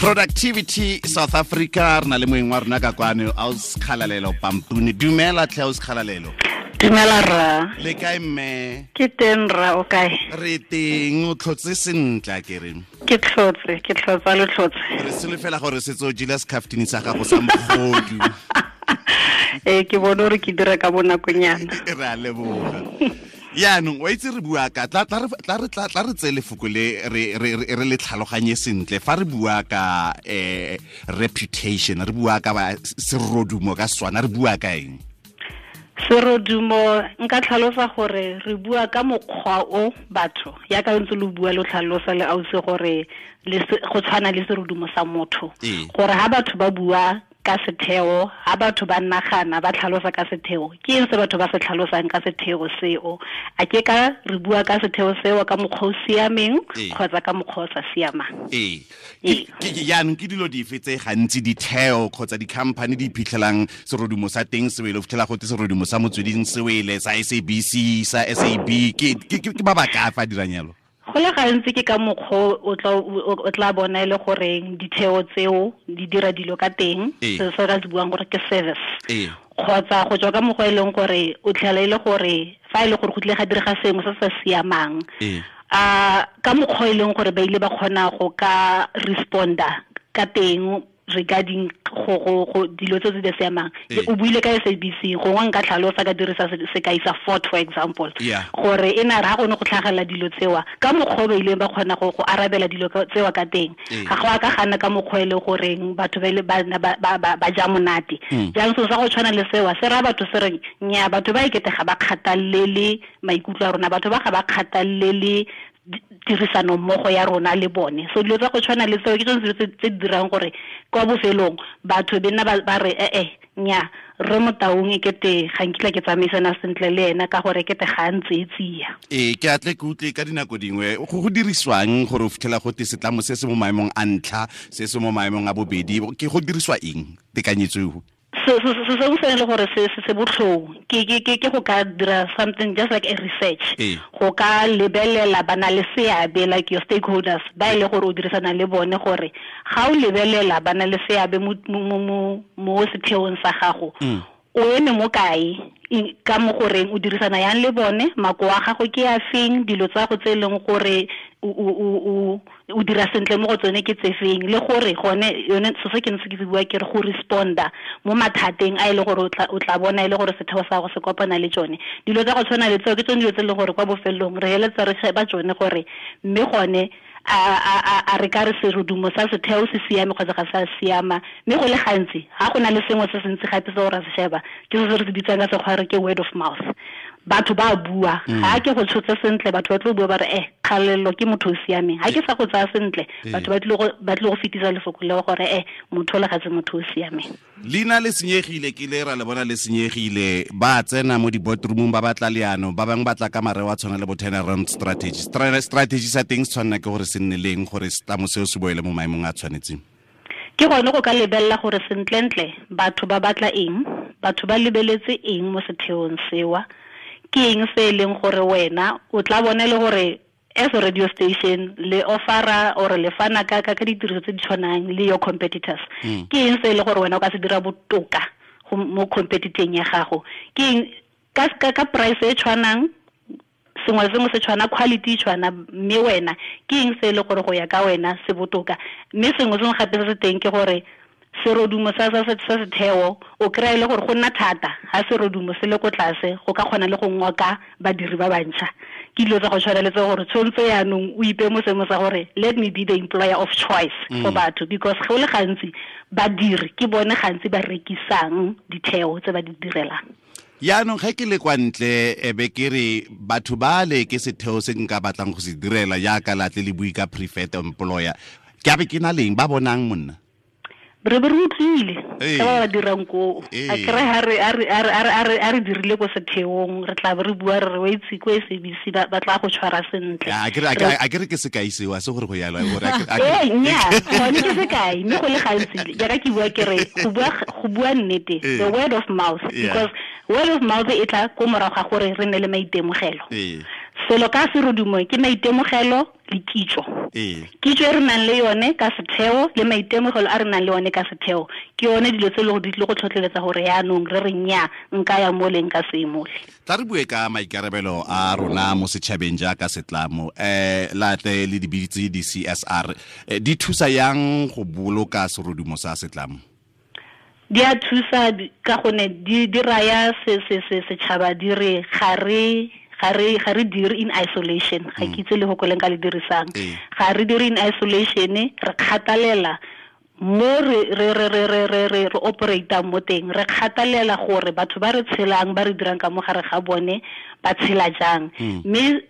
Productivity South Africa, re na le moeng wa rona ka kwano, Aus Kgalalelo Pampuni. Dumela tlhe, Aus Kgalalelo. Dumela rra. Le kae mme? Ke teng rra, o kae? Re teng, o tlhotse sentle a kere? Ke tlhotse, ke tlhotsa lo tlhotse. Re solofela gore setse o jele secaftini sa gago sa mogodu. Ee, ke bone gore ke dira ka bonakonyana. Re a leboga. Yaanong wa itse re bua ka tla re tseye lefoko le re le tlhaloganye sentle fa re bua ka reputation, re bua ka serodumo ka Setswana, re bua ka eng? Serodumo nka tlhalosa gore re bua ka mokgwa o batho ya ka ntse lo bua lo tlhalosa le ausi gore go tshwana le serodumo sa motho, gore ha batho ba bua ka setheo, ha batho ba nagana ba tlhalosa ka setheo, ke eng se batho ba se tlhalosang ka setheo seo? A ke ka re bua ka setheo seo ka mokgwa o siameng kgotsa ka mokgwa o sa siamang? Ee. Jaanong ke dilo dife tse gantsi ditheo kgotsa di-company di iphitlhelang serodumo sa teng se wele, o fitlhela gote serodumo sa Motsweding se wele, sa SABC, sa SAB, ke ba ba ka fa dirang jalo? Go le gantsi ke ka mokgwa o tla bona e le goreng ditheo tseo di dira dilo ka teng, se se ka se buang gore ke service, kgotsa go tswa ka mokgwa e leng gore o tlhela e le gore fa e le gore go tlile ga direga sengwe se sa siamang, ka mokgwa e leng gore ba ile ba kgona go ka responda ka teng regarding go dilo tse di siamang. O buile ka SABC, gongwe nka tlhalosa ka dirisa sekai sa Ford for example, gore e na re ha go ne go tlhagelela dilo tsewa ka mokgwa ba ileng ba kgona go arabela dilo tsewa ka teng, ga go a ka gana ka mokgwa e le goreng batho ba ile ba ja monate. Jaanong selo sa go tshwana le sewa se raya batho se reng nya, batho ba ekete ga ba kgathalele maikutlo a rona, batho ba ga ba kgathalele tirisano mmogo ya rona le bone. So dilo tsa go tshwana le tseo ke tsone dilo tse di dirang gore kwa bofelong batho be nna ba re nya, re Motaung e kete ga nkitla ke tsamaisana sentle le ena ka gore kete ga a ntse e tsia. Ee, ke atle ke utlwe ka dinako dingwe go dirisiwang gore o fitlhela gote setlamo se se mo maemong a ntlha, se se mo maemong a bobedi, ke go dirisiwa eng tekanyetso eo? Se sengwe se e le gore se botlhoko ke go ka dira something just like a research, go ka lebelela ba na le seabe like your stakeholders ba e le gore o dirisana le bone, gore ga o lebelela ba na le seabe mo setheong sa gago, o eme mo kae ka mo goreng o dirisana yang le bone, makoa a gago ke a feng, dilo tsa go tse e leng gore o dira sentle mo go tsone ke tse feng, le gore gone yone se se ke ntse ke se bua ke re go responda mo mathateng a e le gore o tla bona e le gore setheo sa go se kopana le tsone. Dilo tsa go tshwana le tseo ke tsone dilo tse e leng gore kwa bofelong re heletsa re sheba tsone gore mme gone a re ka re serodumo sa setheo se siame kgotsa ga sa siama. Mme go le gantsi ga go na le sengwe se se ntsi gape se o ra se sheba ke se re se bitsang ka sekgwa re ke word of mouth. Batho ba bua, ga ke go tshotse sentle batho ba tlo bua ba re Kgalalelo ke motho o siameng, ga ke sa go tsaya sentle batho ba tlile go fetisa lefoko leo gore motho o le ga se motho o siameng. Leina le senyegile, ke le ra le bona le senyegile, ba tsena mo di-boardroomong ba batla leano, ba bangwe ba tla ka mareo a tshwana le bo turnaround strategy. Strategy sa teng se tshwanela ke gore se nne leng gore setlamo seo se boele mo maemong a tshwanetseng? Ke gone go ka lebelela gore sentlentle batho ba batla eng, batho ba lebeletse eng mo setheong sewa, ke eng se e leng gore wena o tla bona le gore as a radio station le offera or le fana ka ditiriso tse di tshwanang le your competitors, ke eng se e le gore wena o ka se dira botoka mo competiteng ya gago, ke eng ka price e tshwanang, sengwe le sengwe se tshwana, quality e tshwana, mme wena ke eng se e le gore go ya ka wena se botoka. Mme sengwe sengwe gape se se teng ke gore serodumo sa setheo o kry-a e le gore go nna thata ha serodumo se le ko tlase go ka kgona le go ngoka badiri ba bantšha. Ke dilo tsa go tshwana le tse gore tshwanetse yaanong o ipe mo seemo sa gore let me be the employer of choice for batho, because go le gantsi badiri ke bone gantsi ba rekisang ditheo tse ba di direlang. Yaanong ge ke le kwa ntle e be ke re batho ba le ke setheo se nka batlang go se direla jaaka latle le bue ka preferred employer, ke a be ke na leng ba bonang monna? Re be re utlwile ka ba ba dirang koo. A kry ha re dirile ko setheong, re tla be re bua re re wa itse ko SABC ba tla go tshwara sentle. A ke re ke sekai seo, a se gore go yalo, gore a ke- Ee, nnyaa, gone ke sekai, mme go le gantsi jaaka ke bua ke re go bua nnete, the word of mouth, because word of mouth e tla ko morago ga gore re nne le maitemogelo. Selo ka serodumo ke maitemogelo le kitso. Kitso e re nang le yone ka setheo le maitemogelo a re nang le one ka setheo ke yone dilo tse e le gore di tlile go tlhotlheletsa gore yaanong re re nnyaa nka ya mole nka se mole. Tla re bue ka maikarabelo a rona mo setšhabeng jaaka setlamo, latle le dibitse di CSR di thusa yang go boloka serodumo sa setlamo? Di a thusa ka gonne di raya setšhaba di re ga re dire in isolation. Ga ke itse le go koleng ka le dirisang. Ga re dire in isolation, re kgathalela mo re operate mo teng, re kgathalela gore batho ba re tshelang ba re dirang ka mo gare ga bone ba tshela jang. Mme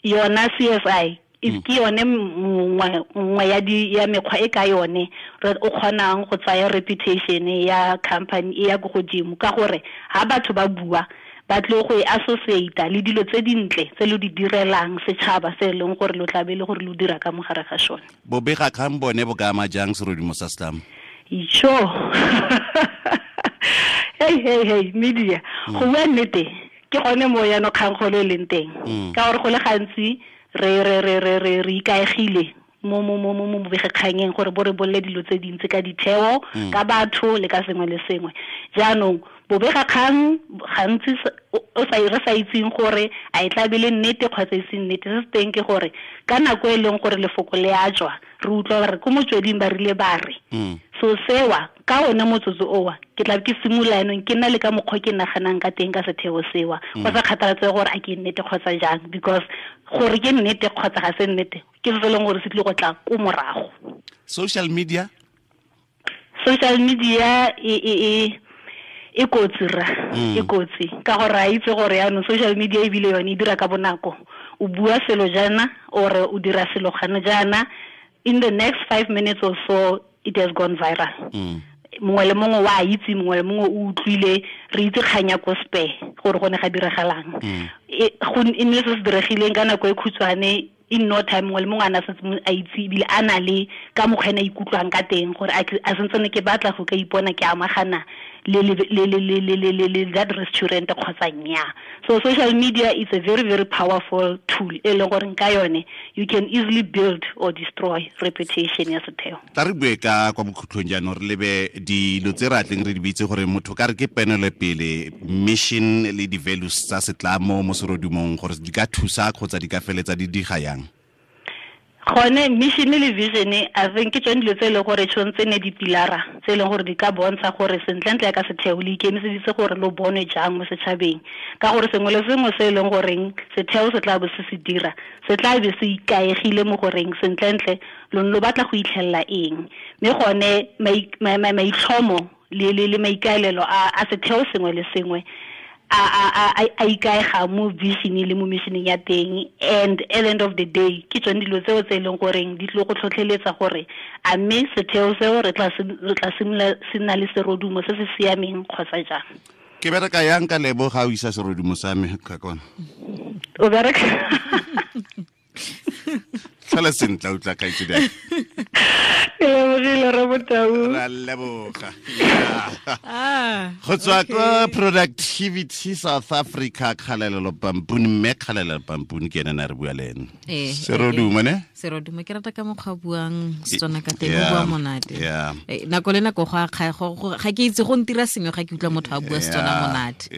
yona CSI ke yone nngwe ya mekgwa e ka yone re o kgonang go tsaya reputation ya company e ya ko godimo, ka gore ha batho ba bua ba tle go e associate le dilo tse dintle tse lo di direlang setšhaba se e leng gore lo tlabe le gore lo dira ka mo gare ga sone. Bobega kgang bone bo ka ama jang serodumo sa setlamo? Icho. Hey media. Go bua nnete ke gone mo yana kgang golo e leng teng, ka gore go le gantsi re ikaegile mo bobegakganyeng gore bo re bolle dilo tse dintsi ka ditheo, ka batho le ka sengwe le sengwe. Jaanong bobegakgang gantsi re sa itseng gore a e tla be le nnete kgotsa e se nnete. Se se teng ke gore ka nako e leng gore lefoko le a tswa, re utlwa gore ko motsweding ba rile ba re. So sewa ka one motsotso owa ke tla ke simolola yanong ke nna le ka mokgwa ke naganang ka teng ka setheo sewa, go sa kgathaletsege gore a ke nnete kgotsa jang, because gore ke nnete kgotsa ga se nnete ke se se leng gore se tlile go tla ko morago. Social media e kotsi ra, e kotsi ka gore a itse gore yaanong social media ebile yone e dira ka bonako. O bua selo jaana or o dira selo gana jaana, in the next 5 minutes or so it has gone viral. Mongwe le mongwe wa itse, mongwe le mongwe o utlwile, re itse kgang ya ko Spur gore go ne ga diragalang. Go nne se se diregileng ka nako e khutshwane, in no time mongwe le mongwe a na setse a itse ebile a na le ka mokgwa ene a ikutlwang ka teng gore a sentse ke batla go ka ipona ke amagana le that restaurant kgotsa nnyaa. So social media is a very, very powerful tool e leng gore ka yone you can easily build or destroy reputation ya setheo. Tla re bue ka kwa bokhutlong jaanong re lebe dilo tse re atleng re di bitse gore motho ka re ke penolopele, mission le di-values tsa setlamo mo serodumong gore di ka thusa kgotsa di ka feletsa di diga yang. Gone mission le vision, I think ke tsone dilo tse e leng gore tshwanetse ne dipilara tse e leng gore di ka bontsha gore sentlentle ya ka setheo le ikemiseditse gore lo bonwe jang mo setšhabeng, ka gore sengwe le sengwe se e leng goreng setheo se tla bo se se dira se tla be se ikaegile mo goreng sentlentle lo batla go itlhelela eng. Mme gone maitlhomo le maikaelelo a setheo sengwe le sengwe a ikaega mo vision le mo missioneng ya teng, and at the end of the day ke tsone dilo tseo tse e leng goreng di tlile go tlhotlheletsa gore a mme setheo seo re tla simolola se nna le serodumo se se siameng kgotsa jang. Ke bereka yang ka lebo ga o isa serodumo sa me ka kona? O bereka tlhola sentle o tla kaitse dang. Ke lebogile re Botau. Ra leboga. Go tswa ko Productivity South Africa, Kgalalelo Pampuni, mme Kgalalelo Pampuni ke ene na re bua le ene. Serodumo ne? Serodumo ke rata ka mokgwa buang Setswana ka teng, o bua monate. Nako le nako go a ga ke itse go ntira sengwe ga ke utlwa motho a bua Setswana monate.